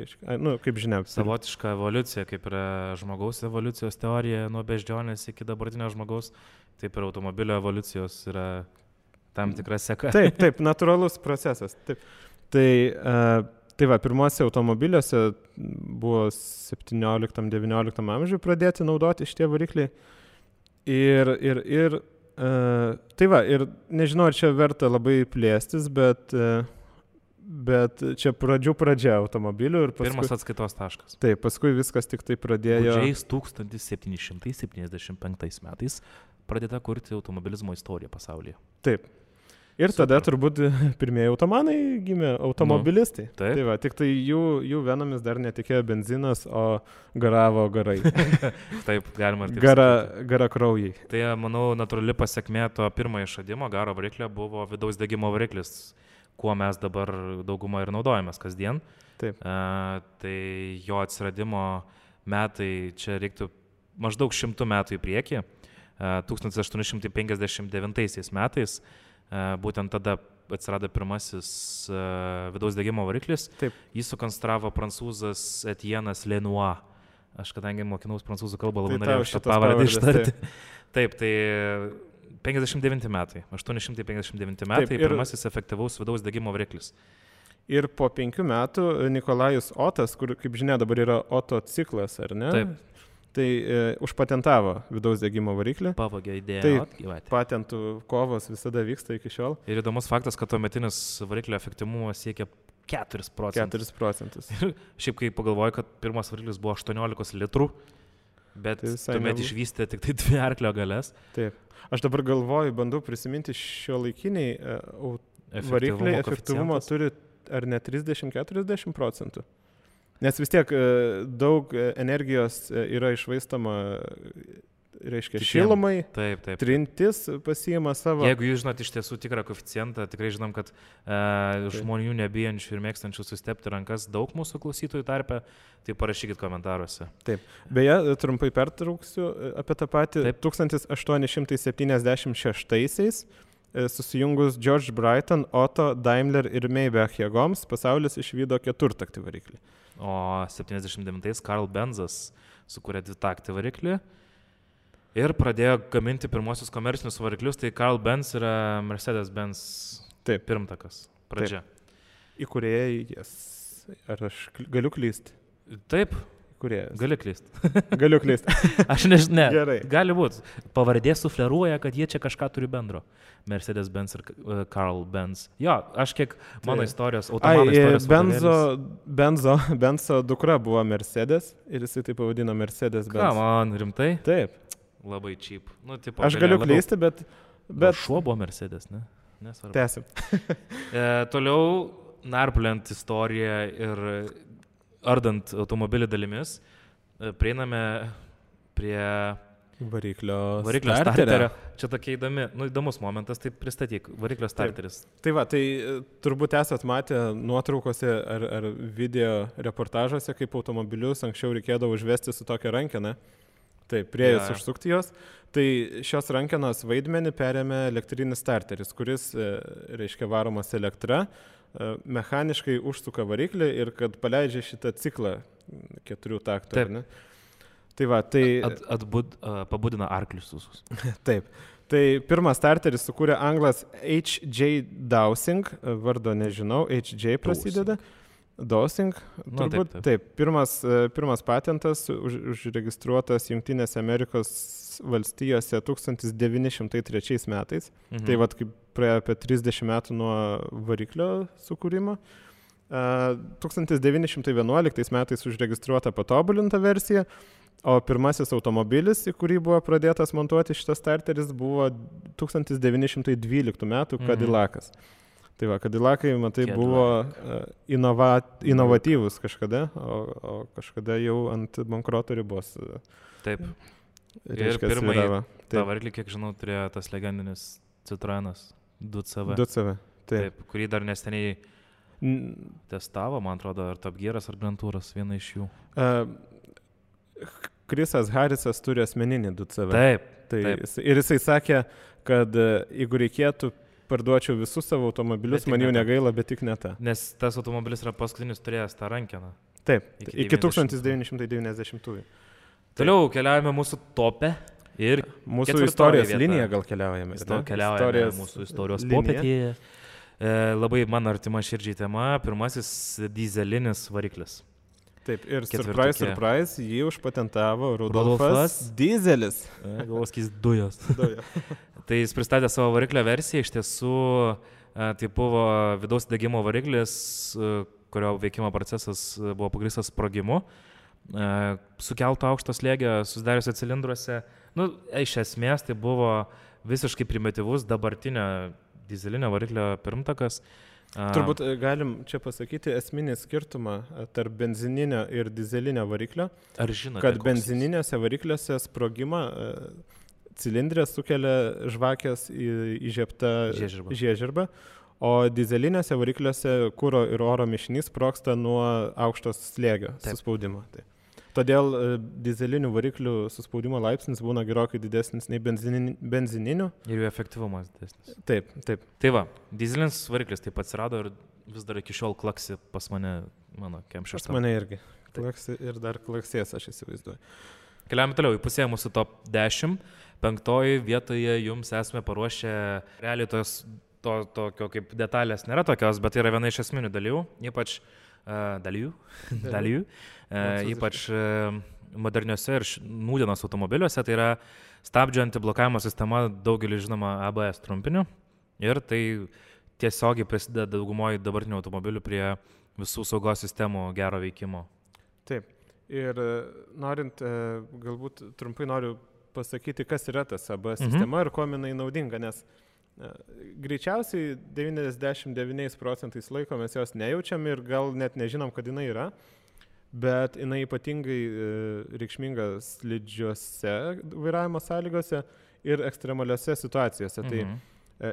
Kaip žinia. Savotiška evoliucija, kaip yra žmogaus evoliucijos teorija nuo beždžionės iki dabartinio žmogaus, taip ir automobilio evoliucijos yra tam tikra seka. Taip, natūralus procesas. Taip. Tai va, pirmuose automobiliuose buvo 17-19 amžiuje pradėti naudoti šitie varikliai. Tai va, ir nežinau, ar čia verta labai plėstis, bet čia pradžia automobilių ir paskui... Pirmas atskaitos taškas. Taip, paskui viskas tik tai pradėjo... Gudžiais 1775 metais pradėta kurti automobilizmo istoriją pasaulyje. Taip. Ir tada turbūt pirmieji automanai gimė automobilistai. Tai va, tik tai jų venomis dar netikėjo benzinas, o garavo garai. Taip, galima ir taip. Gara kraujai. Tai, manau, natūrali pasekmė to pirmojo išradimo garo variklio buvo vidaus degimo variklis, kuo mes dabar daugumą ir naudojamės kasdien. Taip. Tai jo atsiradimo metai, čia reiktų maždaug 100 metų į priekį. 1859 metais būtent tada atsirado pirmasis vidaus degimo variklis. Taip. Jį sukonstravo prancūzas Etienas Lenoir. Aš kadangi mokinaus prancūzų kalbą, labai norėjau šitą pavardę ištarti. Taip, tai 59 metai, 859 metai, pirmasis efektyvaus vidaus degimo variklis. Ir po 5 metų Nikolajus Otas, kur, kaip žinia, dabar yra Oto ciklas, ar ne? Taip. Tai užpatentavo vidaus degimo variklį. Pavogė idėją. Tai patentų kovos visada vyksta iki šiol. Ir įdomus faktas, kad tuometinis variklio efektyvumas siekia 4%. 4%. Ir šiaip kai pagalvoju, kad pirmas variklis buvo 18 litrų, bet tai tuomet išvystė tik tai 2 arklio galės. Taip. Aš dabar galvoju, bandau prisiminti šiuolaikiniai varikliai efektyvumo turi ar ne 30-40%. Nes vis tiek daug energijos yra išvaistoma reiškia šilumai, Taip. trintis pasiima savo. Jeigu jūs žinot iš tiesų tikrą koeficientą, tikrai žinom, kad žmonių nebijančių ir mėgstančių sustepti rankas daug mūsų klausytojų tarpe, tai parašykit komentaruose. Taip. Beje, trumpai pertrauksiu apie tą patį. Taip. 1876 susijungus George Brighton, Otto, Daimler ir Maybach jėgoms pasaulis išvydo keturtaktį variklį. O 79 Karl Benzas sukūrė dvitaktį variklį ir pradėjo gaminti pirmosius komercinius variklius, tai Karl Benz yra Mercedes-Benz pirmtakas, pradžia. Įkūrėjas. Ar aš galiu klysti? Taip. Kūrėjas. Gali klysti. Galiu klysti. Aš nežinau. Gerai. Gali būti. Pavardė sufleruoja, kad jie čia kažką turi bendro. Mercedes-Benz ir Karl Benz. Jo, aš kiek mano istorijos, automano istorijos. Benzo dukra buvo Mercedes ir jisai taip pavadino Mercedes-Benz. Ką man, rimtai? Taip. Labai cheap. Nu, tipo, aš galiu klysti, bet... Šuo buvo Mercedes, ne? Nesvarbu. Tęsim. Toliau narpliant istoriją ir ardant automobilį dalimis, prieiname prie variklio starterio. Čia tokia įdomus momentas, tai pristatyk, variklio starteris. Tai va, tai turbūt esat matę nuotraukose ar video reportažuose, kaip automobilius anksčiau reikėdavo užvesti su tokia rankena. Taip, priejus užsukti jos. Tai šios rankenos vaidmenį perėmė elektrinis starteris, kuris, reiškia, varomas elektra, mechaniškai užsuka variklį ir kad paleidžia šitą ciklą 4 taktų. Taip. Ne? Tai va, tai... Pabudina arklius visus. Taip. Tai pirmas starteris sukūrė anglas H.J. Dowsing, vardo nežinau, H.J. prasideda. Dowsing, turbūt. Taip. Pirmas patentas užregistruotas Jungtinėse Amerikos valstijose 1903 metais. Tai vat kaip praėjo apie 30 metų nuo variklio sukūrimo. 1911 metais užregistruota patobulinta versija, o pirmasis automobilis, į kurį buvo pradėtas montuoti šitas starteris, buvo 1912 metų Cadillacas. Tai va, Cadillacai, matai, buvo inovatyvus kažkada, o kažkada jau ant bankroto ribos. Taip. Ir pirmąjį tą variklį, kiek žinau, turėjo tas legendinis Citroenas 2CV. 2CV, taip. Kurį dar neseniai testavo, man atrodo, ar Top Gearas, ar Grand Touras, viena iš jų. Chrisas Harrisas turi asmeninį 2CV. Taip. Ir jisai sakė, kad jeigu reikėtų, parduočiau visus savo automobilius, man jų negaila, bet tik ne tą. Nes tas automobilis yra paskutinis turėjęs tą rankeną. Taip, iki 1990-ųjų. Toliau keliaujame mūsų topę ir mūsų istorijos liniją gal keliaujame. Keliaujame mūsų istorijos popetėje. Labai man artima širdžiai tema, pirmasis dyzelinis variklis. Taip, ir surprise, jį užpatentavo Rudolfas Dyzelis. Galvoskys dujos. Tai jis pristatė savo variklio versiją, iš tiesų tai buvo vidaus degimo variklis, kurio veikimo procesas buvo pagrįstas sprogimu, sukelto aukšto slėgio, susidariuose cilindruose. Iš esmės tai buvo visiškai primityvus dabartinio dyzelinio variklio pirmtakas. Turbūt galim čia pasakyti esminį skirtumą tarp benzininio ir dyzelinio variklio. Ar žinote, kad benzininiuose varikliuose sprogimą cilindrė sukelia žvakės įžiebta žiežirbą, o dyzeliniuose varikliuose kuro ir oro mišinys sprogsta nuo aukšto slėgio suspaudimo. Taip. Todėl dyzelinių variklių suspaudimo laipsnis būna gerokai didesnis nei benzininių. Ir jų efektyvumas didesnis. Taip. Tai va, dyzelinis variklis taip atsirado ir vis dar iki šiol klaksi pas mane, mano Kem6. Pas mane irgi. Klaksi ir dar klaksės, aš įsivaizduoju. Keliame toliau, įpusėję mūsų top 10. 5 vietoje jums esame paruošę, realiai tokio kaip detalės nėra tokios, bet tai yra viena iš esminių dalyvių, ypač ypač moderniuose ir nūdienos automobiliuose, tai yra stabdžio antiblokavimo sistema, daugelį žinoma ABS trumpiniu, ir tai tiesiogiai prisideda daugumoje dabartinių automobilių prie visų saugos sistemų gero veikimo. Taip, ir norint, galbūt trumpai noriu pasakyti, kas yra tas ABS sistema ir kuo jinai naudinga, nes greičiausiai 99% laiko mes jos nejaučiam ir gal net nežinom, kad jinai yra. bet jinai ypatingai reikšminga slidžiuose vairavimo sąlygose ir ekstremaliuose situacijose. Tai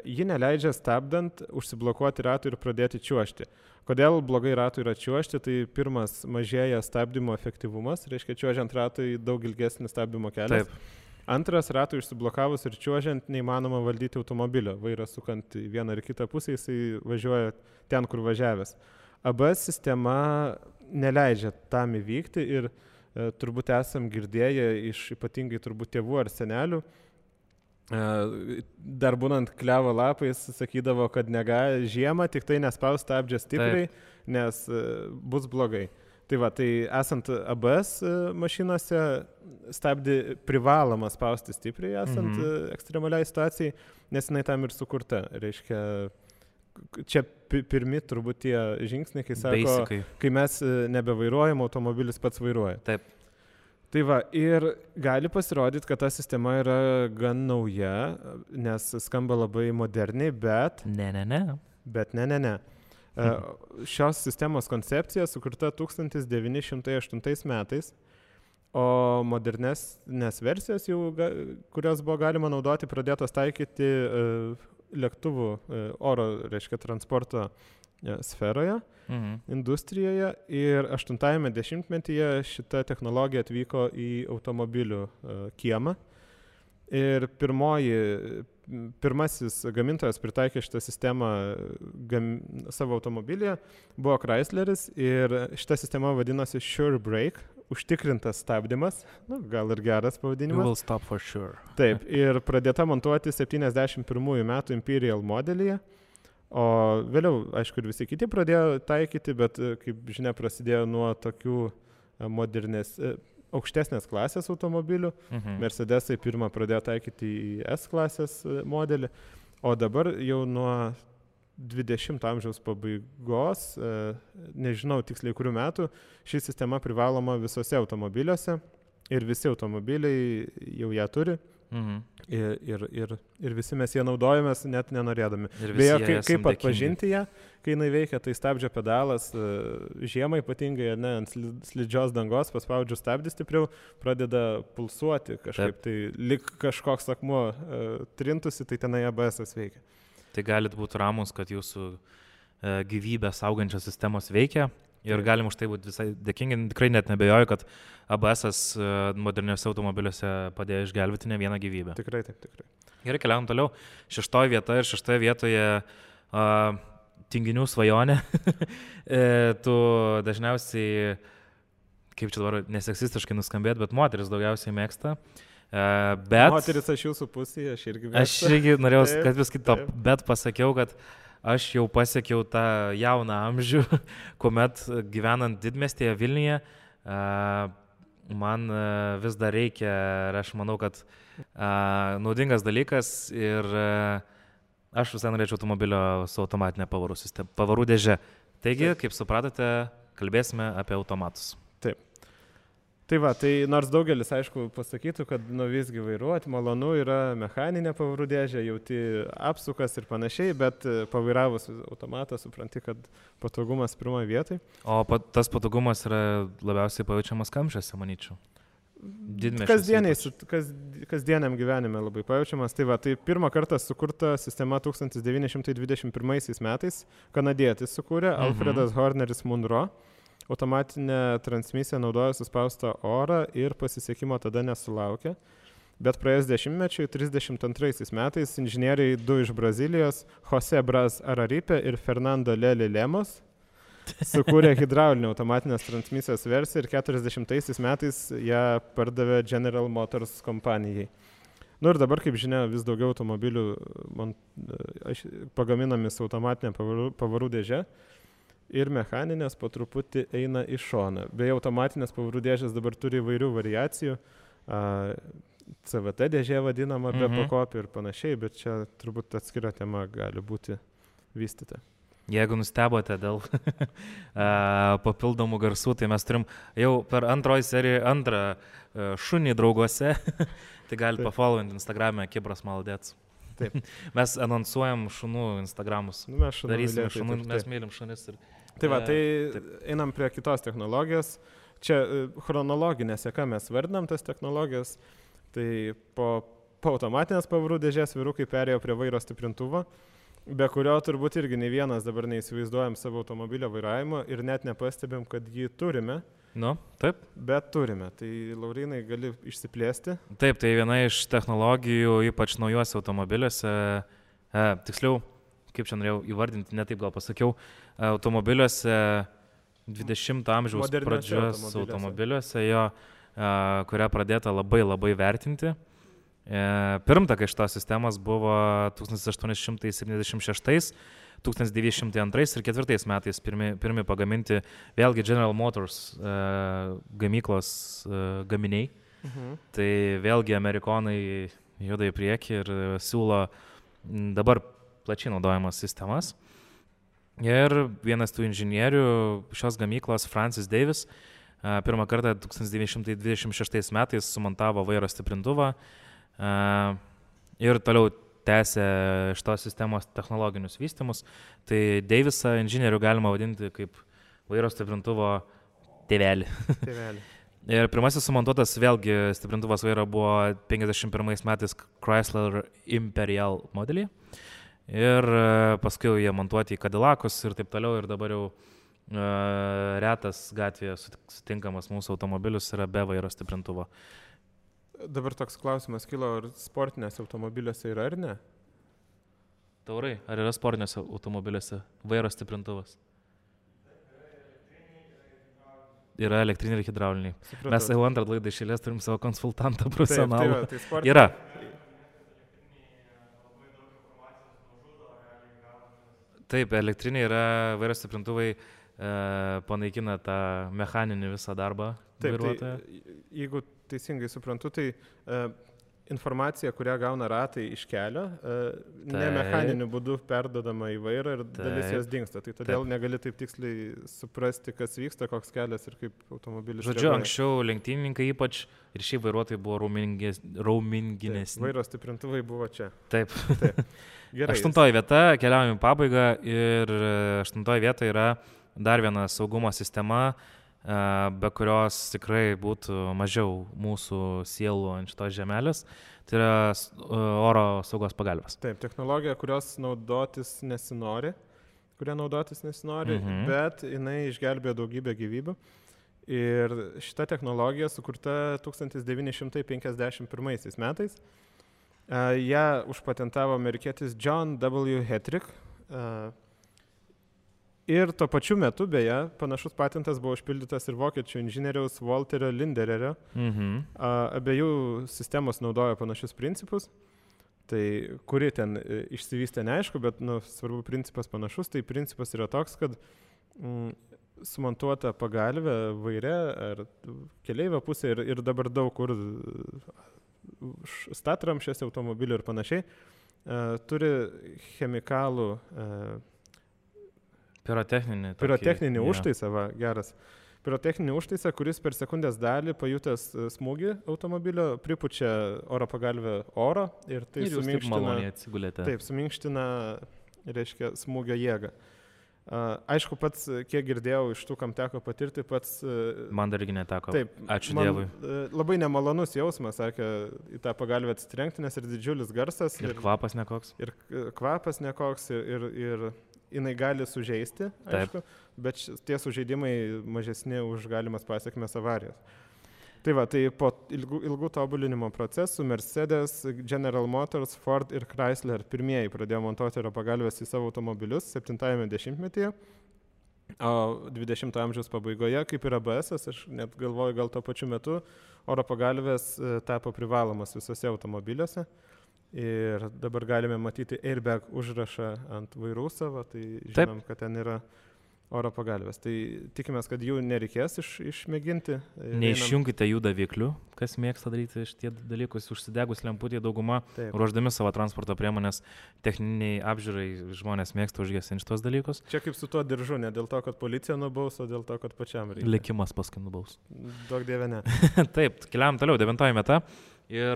ji neleidžia stabdant užsiblokuoti ratui ir pradėti čiuožti. Kodėl blogai ratui yra čiuožti? Tai pirmas, mažėja stabdymo efektyvumas, reiškia čiuožiant ratui daug ilgesnis stabdymo kelias. Taip. Antras, ratui išsiblokavus ir čiuožiant neįmanoma valdyti automobilio. Vairas sukant į vieną ar kitą pusę, jisai važiuoja ten, kur važiavęs. ABS sistema neleidžia tam įvykti ir turbūt esam girdėję iš ypatingai turbūt tėvų ar senelių, dar būnant klevo lapais sakydavo, kad žiemą tik tai nespaus stabdžio stipriai, nes bus blogai. Tai va, tai esant ABS mašinose stabdį privaloma spausti stipriai, esant ekstremaliai situacijai, nes jinai tam ir sukurta. Reiškia, čia pirmi turbūt tie žingsniai, kai sako, Basically. Kai mes nebevairuojam, automobilis pats vairuoja. Taip. Tai va, ir gali pasirodyti, kad ta sistema yra gan nauja, nes skamba labai moderniai, bet... Ne. Šios sistemos koncepcija sukurta 1908 metais, o modernesnės versijos, kurios buvo galima naudoti, pradėtos taikyti lėktuvų oro, reiškia, transporto sferoje, industrijoje, ir 80-ame dešimtmetyje šita technologija atvyko į automobilių kiemą. Ir pirmasis gamintojas pritaikė šitą sistemą savo automobilyje buvo Chrysleris, ir šita sistema vadinosi Sure Brake, užtikrintas stabdymas, gal ir geras pavadinimas. You will stop for sure. Taip, ir pradėta montuoti 71 metų Imperial modelyje, o vėliau, aišku, ir visi kiti pradėjo taikyti, bet, kaip žinia, prasidėjo nuo tokių aukštesnės klasės automobilių. Mercedesai pirmą pradėjo taikyti į S klasės modelį, o dabar jau nuo 20 amžiaus pabaigos, nežinau tiksliai kurių metų, ši sistema privaloma visose automobiliuose ir visi automobiliai jau ją turi. Ir visi mes ją naudojamės net nenorėdami. Beje, kaip atpažinti ją, kai jinai veikia, tai stabdžio pedalas žiemą ypatingai, ant slidžios dangos, paspaudžiu stabdį stipriau, pradeda pulsuoti kažkaip, tai lik kažkoks akmuo trintusi, tai tenai ABS veikia. Tai galit būti ramus, kad jūsų gyvybę saugančios sistemos veikia. Ir galim už tai būti visai dėkingi. Tikrai net nebejoju, kad ABS moderniuose automobiliuose padėjo išgelbėti ne vieną gyvybę. Tikrai, taip, tikrai. Gerai, keliaujam toliau. 6 vieta ir 6 vietoje tinginių svajonė. Tu dažniausiai, kaip čia dabar neseksistiškai nuskambėt, bet moteris daugiausiai mėgsta. Moteris aš jūsų pusėje, aš irgi mėgstu. Aš irgi norėjau, kad vis kito, bet pasakiau, kad aš jau pasiekiau tą jauną amžių, kuomet gyvenant didmiestyje Vilniuje, man vis dar reikia, ir aš manau, kad naudingas dalykas, ir aš visai norėčiau automobilio su automatinė pavarų dėže. Taigi, kaip supratote, kalbėsime apie automatus. Taip. Tai va, tai nors daugelis, aišku, pasakytų, kad visgi vairuoti malonu yra mechaninė pavarų dėžė, jauti apsukas ir panašiai, bet pavairavus automatą supranti, kad patogumas pirmoje vietoje. O tas patogumas yra labiausiai pajaučiamas kamščiuose, manyčiau. Kasdieniam gyvenime labai pajaučiamas. Tai va, tai pirmą kartą sukurta sistema 1921 metais, kanadietis sukūrė, Alfredas Horneris Munro. Automatinė transmisija naudojo suspaustą orą ir pasisekimo tada nesulaukė. Bet praėjus dešimtmečiui, 32 metais, inžinieriai 2 iš Brazilijos, Jose Braz Araripe ir Fernando Lely Lemos, sukūrė hidraulinę automatinės transmisijos versiją ir 40 metais ją pardavė General Motors kompanijai. Ir dabar, kaip žinia, vis daugiau automobilių pagaminami su automatinė pavarų dėže. Ir mechaninės po truputį eina į šoną. Beje, automatinės pavarų dėžės dabar turi įvairių variacijų. CVT dėžė vadinama be pakopį ir panašiai, bet čia turbūt atskira tema gali būti vystyta. Jeigu nustebote dėl papildomų garsų, tai mes turim jau per antroji seriją antrą šunį drauguose, tai gali pafollowinti Instagram'e Kibras Maldėts. Taip. Mes anonsuojam šunų Instagramus. Mes darysime šunų, mes mylim šunis. Tai va, tai einam prie kitos technologijos. čia chronologinė seka mes vardinam tas technologijas, tai po automatinės pavarų dėžės vyrukai perėjo prie vairo stiprintuvo, be kurio turbūt irgi nei vienas dabar neįsivaizduojam savo automobilio vairavimo ir net nepastebėm, kad jį turime. Nu, taip. Bet turime. Tai Laurynai gali išsiplėsti. Taip, tai viena iš technologijų, ypač naujuose automobiliuose, tiksliau, kaip čia norėjau įvardinti, netaip gal pasakiau, automobiliuose 20 amžiaus pradžios automobiliuose, kurią pradėta labai vertinti. Pirmtakai šitos sistemos buvo 1876, 1902 ir 1904 metais pirmi pagaminti vėlgi General Motors gamyklos gaminiai. Tai vėlgi amerikonai juda į priekį ir siūlo dabar plačiai naudojamas sistemas. Ir vienas tų inžinierių šios gamyklos, Francis Davis, pirmą kartą 1926 metais sumontavo vairo stiprintuvą ir toliau tęsė šitos sistemos technologinius vystymus. Tai Davisą inžinierių galima vadinti kaip vairo stiprintuvo tėvelį. Ir pirmasis sumontuotas vėlgi stiprintuvas vairo buvo 51 metais Chrysler Imperial modelį. Ir paskui jie montuoti į Cadillacus ir taip toliau. Ir dabar jau retas gatvėje sutinkamas mūsų automobilius yra be vairo stiprintuvo. Dabar toks klausimas kilo, ar sportinėse automobiliuose yra ar ne? Taurai, ar yra sportinėse automobiliuose vairo stiprintuvas? Yra elektriniai ir hidrauliniai. Supratau. Mes jau antrą laidą iš eilės turim savo konsultantą profesionalą. Tai yra. Taip, elektriniai yra vairo stiprintuvai, panaikina tą mechaninį visą darbą vairuotojo. Tai, jeigu teisingai suprantu, tai informacija, kurią gauna ratai iš kelio, ne mechaniniu būdu perdodama į vairą ir dalis jos dingsta. Tai todėl negali taip tiksliai suprasti, kas vyksta, koks kelias ir kaip automobilis. Žodžiu, anksčiau lenktynininkai ypač ir šį vairuotojai buvo rauminginesni. Vairo stiprintuvai buvo čia. Taip. Gerai. 8 vieta, keliaujame į pabaigą ir 8 vieta yra dar viena saugumo sistema, be kurios tikrai būtų mažiau mūsų sielų ant šitos žemelės, tai yra oro saugos pagalvės. Taip, technologija, kuria naudotis nesinori, bet jinai išgelbėjo daugybę gyvybių. Ir šita technologija sukurta 1951 metais. Ją užpatentavo amerikietis John W. Hetrick. Ir tuo pačiu metu, beje, panašus patentas buvo užpildytas ir vokiečių inžinieriaus Walterio Lindererio. Abiejų sistemos naudojo panašius principus. Tai kuri ten išsivystė neaišku, bet svarbu principas panašus. Tai principas yra toks, kad sumontuota pagalvė vaire ar keleivio pusė ir dabar daug kur statramšės automobilių ir panašiai, turi chemikalų pirotechninį užtaisą, geras. Pirotechninį užtaisą, kuris per sekundės dalį pajutęs smūgį automobilio pripučia oro pagalvę oro ir tai suminkština, reiškia, smūgio jėgą. Aišku, pats, kiek girdėjau iš tų, kam teko patirti, pats... Man dar irgi neteko. Taip, ačiū Dievui. Labai nemalonus jausmas, sakė, į tą pagalvę atsitrenkti, nes ir didžiulis garsas. Ir kvapas nekoks. Ir jinai gali sužeisti, aišku, bet tie sužeidimai mažesni už galimas pasiekmes avarijos. Tai va, tai po ilgų tobulinimo procesų Mercedes, General Motors, Ford ir Chrysler pirmieji pradėjo montuoti oro pagalves į savo automobilius 70-ame dešimtmetyje, o 20-ojo amžiaus pabaigoje, kaip ir ABS-as, aš net galvoju, gal tuo pačiu metu oro pagalvės tapo privalomas visose automobiliuose. Ir dabar galime matyti airbag užrašą ant vairų savo, tai žinom, kad ten yra oro pagalvės. Tai tikimės, kad jų nereikės išmėginti. Neišjungite jų daviklių, kas mėgsta daryti šitie dalykus, užsidegus lemputį dauguma, ruoždami savo transporto priemonės techniniai apžiūrai, žmonės mėgsta užgesinti šitos dalykus. Čia kaip su tuo diržu, ne dėl to, kad policija nubaus, o dėl to, kad pačiam reikia. Likimas paskui nubaus. Daug dieve ne. Taip, keliam toliau, 9 vieta. Ir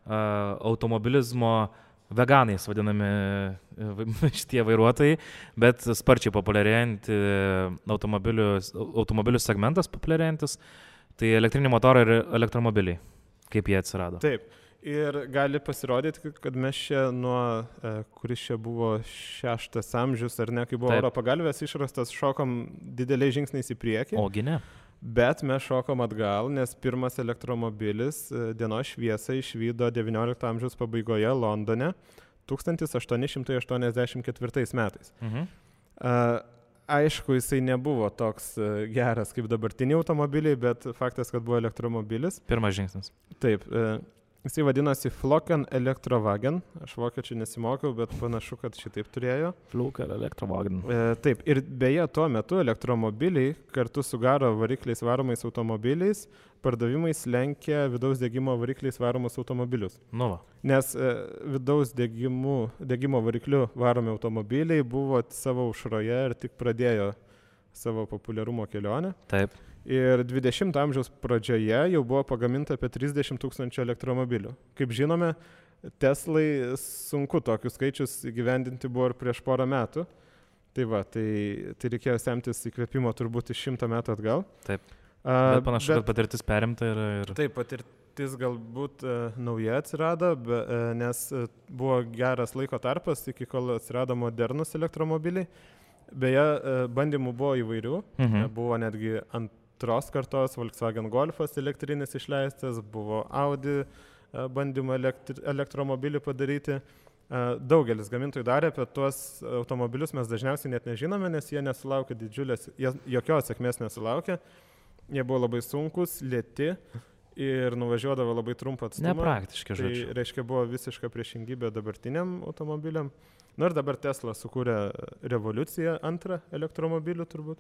automobilizmo veganais vadinami šitie vairuotojai, bet sparčiai populiarėjantį automobilių segmentas populiarėjantis, tai elektriniai motorai ir elektromobiliai, kaip jie atsirado. Taip. Ir gali pasirodyti, kad mes čia nuo, kuris čia buvo 6 amžius, ar ne, kai buvo oro pagalvės išrastas, šokom dideliais žingsniais į priekį. Ogi ne. Bet mes šokom atgal, nes pirmas elektromobilis dienos šviesą išvydo 19 amžiaus pabaigoje Londone 1884 metais. Aišku, jisai nebuvo toks geras kaip dabartiniai automobiliai, bet faktas, kad buvo elektromobilis. Pirmas žingsnis. Taip. Jisai vadinasi Flocken Elektrowagen. Aš vokiečių nesimokiau, bet panašu, kad šitaip turėjo. Flocken Elektrowagen. Taip. Ir beje, tuo metu elektromobiliai kartu su garo varikliais varomais automobiliais pardavimais lenkia vidaus degimo varikliais varomus automobilius. Nu va. Nes vidaus degimo variklių varomi automobiliai buvo savo aušroje ir tik pradėjo savo populiarumo kelionę. Taip. Ir 20 amžiaus pradžioje jau buvo pagaminta apie 30 000 elektromobilių. Kaip žinome, Teslai sunku tokius skaičius įgyvendinti buvo ir prieš porą metų. Tai va, tai reikėjo semtis įkvėpimo turbūt iš 100 metų atgal. Taip. Bet panašu, kad patirtis perimta ir... Taip, patirtis galbūt nauja atsirado, nes buvo geras laiko tarpas, iki kol atsirado modernus elektromobiliai. Beje, bandymų buvo įvairių. Buvo netgi antros kartos Volkswagen Golfas elektrinis išleistas, buvo Audi bandymą elektromobilį padaryti. Daugelis gamintojų darė, apie tuos automobilius mes dažniausiai net nežinome, nes jie nesulaukė jokios sėkmės nesulaukė. Jie buvo labai sunkus, lėti ir nuvažiuodavo labai trumpą atstumą. Nepraktiški, žodžiu. Tai reiškia, buvo visiška priešingybė dabartiniam automobiliam. Na ir dabar Tesla sukūrė revoliuciją antrą elektromobilių turbūt.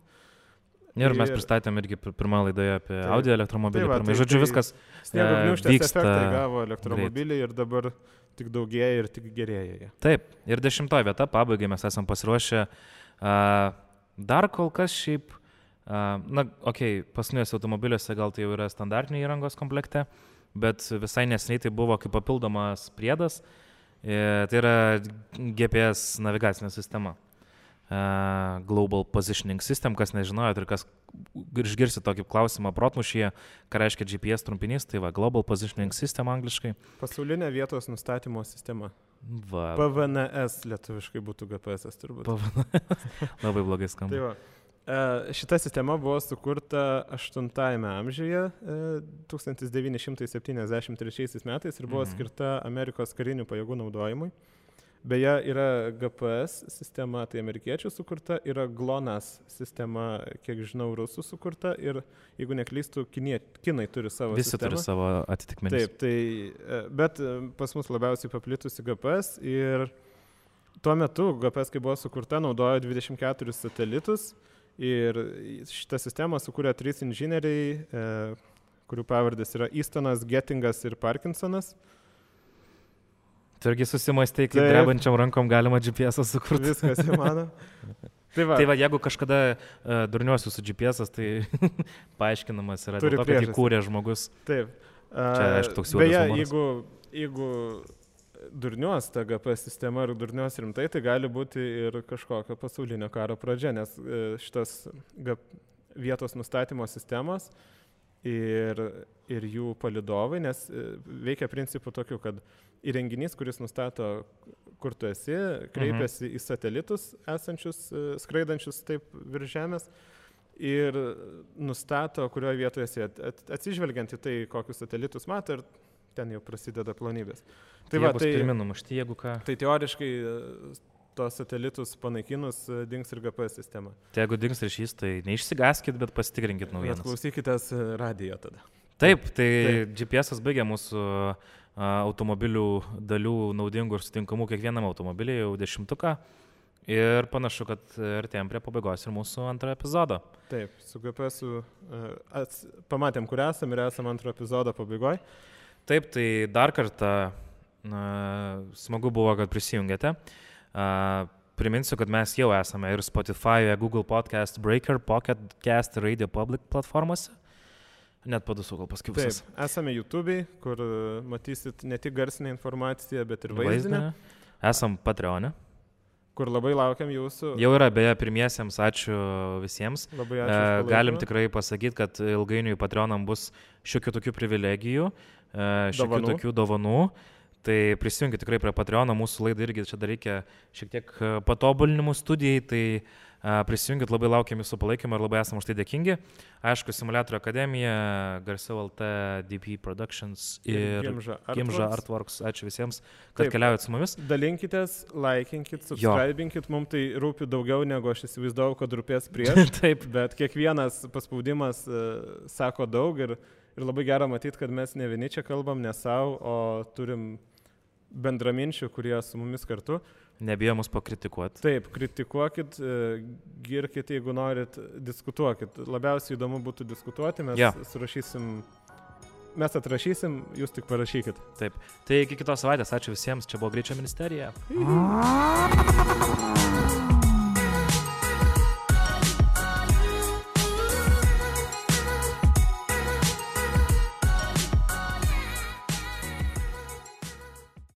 Ir mes pristatėm irgi pirmą laidoje apie Audi elektromobilį. Žodžiu, viskas sniego gniūžtės efektą gavo elektromobiliai ir dabar tik daugėja ir tik gerėja. Taip, ir 10 vieta, pabaigai mes esam pasiruošę. Dar kol kas šiaip, paskutiniuose automobiliuose gal tai jau yra standartiniai įrangos komplekte, bet visai neseniai tai buvo kaip papildomas priedas. Tai yra GPS navigacinė sistema. Global Positioning System, kas nežinojot ir kas išgirsi tokį klausimą protmušyje, ką reiškia GPS trumpinys, tai va, Global Positioning System angliškai. Pasaulinė vietos nustatymo sistema. Va. PVNS lietuviškai būtų GPS turbūt. Labai blogai skamba. Tai va. Šita sistema buvo sukurta 8 amžiuje 1973 metais ir buvo skirta Amerikos karinių pajėgų naudojimui. Beje, yra GPS sistema, tai amerikiečių sukurta, yra GLONASS sistema, kiek žinau, rusų sukurta ir, jeigu neklystų, kinai turi savo Visi sistemą. Turi savo atitikmenis. Taip, bet pas mus labiausiai paplitusi GPS ir tuo metu GPS, kai buvo sukurta, naudojo 24 satelitus. Ir šitą sistemą sukūrė 3 inžinieriai, kurių pavardės yra Eastonas, Gettingas ir Parkinsonas. Tu irgi susimąstai, kaip drebančiam rankom galima GPS sukurti. Viskas įmanoma. Tai va, jeigu kažkada durniuosiu su GPS, tai paaiškinamas yra dėl to, kad įkūrė žmogus. Taip. Čia, aišku, toks juodas humoras. Beje, jeigu durniuos ta GPS sistema ir durniuos rimtai, tai gali būti ir kažkokio pasaulinio karo pradžia, nes šitas vietos nustatymo sistemos ir jų palydovai, nes veikia principu tokiu, kad įrenginys, kuris nustato, kur tu esi, kreipiasi į satelitus esančius, skraidančius taip virš Žemės ir nustato, kurioje vietoje esi, atsižvelgiant į tai, kokius satelitus mato ir ten jau prasideda plonybės. Tai va, tai numušti, jeigu ką. Tai teoriškai tos satelitus panaikinus dings ir GPS sistema. Tai jeigu dings ryšys, tai neišsigaskit, bet pasitikrinkit naujienas. Klausykitės radijo tada. Taip, GPS baigia mūsų automobilių dalių naudingų ir sutinkamų kiekvienam automobiliui jau 10. Ir panašu, kad artėjom prie pabaigos ir mūsų antrą epizodą. Taip, su GPS-u pamatėm, kur esam ir esam antro epizodo pabaigoje. Taip, tai dar kartą smagu buvo, kad prisijungėte. Priminsiu, kad mes jau esame ir Spotify, Google Podcast, Breaker, Pocket Cast, Radio Public platformose. Net po 2 gal paskipusias. Taip, esame YouTube'ai, kur matysit ne tik garsinę informaciją, bet ir vaizdinę. Esam Patreon'e. Kur labai laukiam jūsų. Jau yra, beje, pirmiesiems, ačiū visiems. Labai ačiū. Galim tikrai pasakyti, kad ilgainiui Patreonam bus šiokių tokių privilegijų, šiokių tokių dovanų. Tai prisijungit tikrai prie Patreono, mūsų laidai irgi čia dar reikia šiek tiek patobulinimų studijai, tai prisijungit, labai laukiam jūsų palaikymą ir labai esam už tai dėkingi. Aišku, Simuliatorių akademija, Garsiau LT, DP Productions ir Gimža Artworks. Ačiū visiems, kad keliaujat su mumis. Dalinkitės, laikinkit, subscribinkit, mums tai rūpi daugiau negu aš įsivaizdavau, kad rūpės prieš. Taip. Bet kiekvienas paspaudimas sako daug ir labai gera matyti, kad mes ne vieni čia kalbam, ne savo, o turim bendraminčių, kurie su mumis kartu. Nebijo mus pakritikuoti. Taip, kritikuokit, girkit, jeigu norit, diskutuokit. Labiausiai įdomu būtų diskutuoti, mes atrašysim, jūs tik parašykit. Taip, tai iki kitos savaitės, ačiū visiems, čia buvo Greičio ministerija.